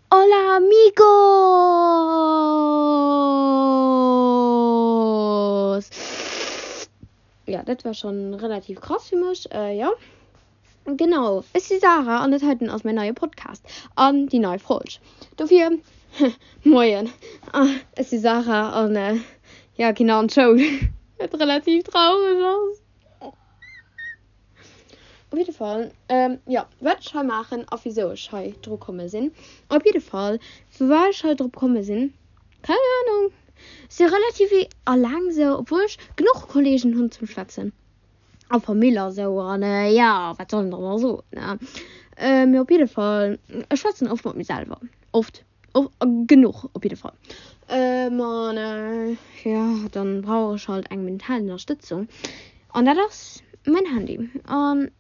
Hola amigos! Jo, dat war schon relativ krass fir mech, jo. Genau, ech si Sarah an dat heiten ass mäin neie Podcast an déi nei Folg. Dofir, moien, ech si Sarah an jo, ginn an d'Schoul, wat relativ traureg ass. Op jidde Fall, jo, wat ech hei maachen a wisou ech hei dru komme sinn. Op jidde Fall, firwat ech hei drop komme sinn, keng Anung. Ech si relativ alleng sou, obwuel ech genuch Kolleegen hunn zum Schwätzen a Famill a sou an jo, wat soll een dann nach soen, ne? Mee op jidde Fall, ech schwätzen oft mat mir selwer, oft. Och genuch op jidde Fall. An jo, dann brauch ech halt eng mental Ënnerstëtzung. An dat ass mäin Handy. An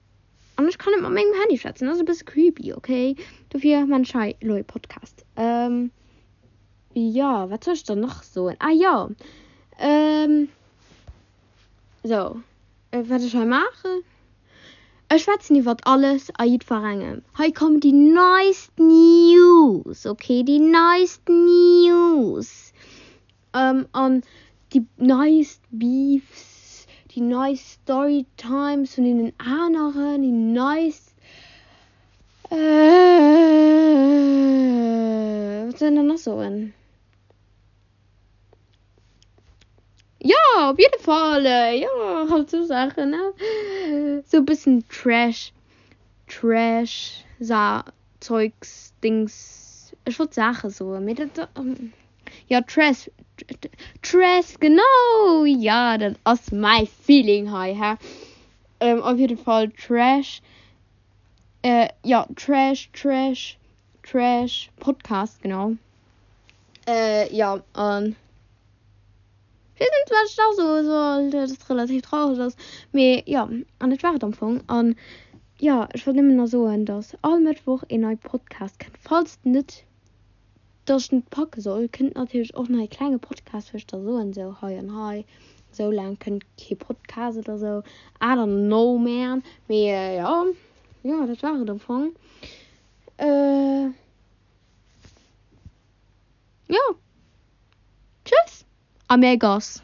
an ech kann net mat mengem Handy schwätzen. Dat ass e bësse creepy, okay? Dofir man ech hei elo e Podcast. Jo, wat soll ech dann nach soen? Ah jo, sou, wat ech hei maachen? Ech schwätzen iwwert alles a jiddwerengem. Hei kommen déi neist News, ok, déi neist News an déi neist Beefs, déi neist Storytimes vun deenen aneren, déi neist, wat soll een dann nach soen? Jo, op jidde Fall, jo, halt sou Saachen, ne? Sou e bëssen Trash, Trash, Sa Zeugs, Dings, ech wollt Saache soen, mee dat, jo, Trash, Trash, genau, jo, dat ass mäi Feeling hei, hä? Op jidde Fall Trash, jo, Trash, Trash, Trash Podcast, genau. Jo, an ech weess net, wat ech nach soe soll, dat et relativ traureg ass. Mee jo, an dat war et am Fong. An jo, ech wollt nëmmen nach soen, dass all Mëttwoch een neie Podcast kënnt. Falls net, dass ech net packe soll, kënnt natierlech och nach ee klenge Podcast, wou ech da soen, sou hei an hei, sou laang kënnt kee Podcast oder sou. I don't know, man. Mee jo, jo, dat war et am Fong. Jo, tschüss a mir Goss.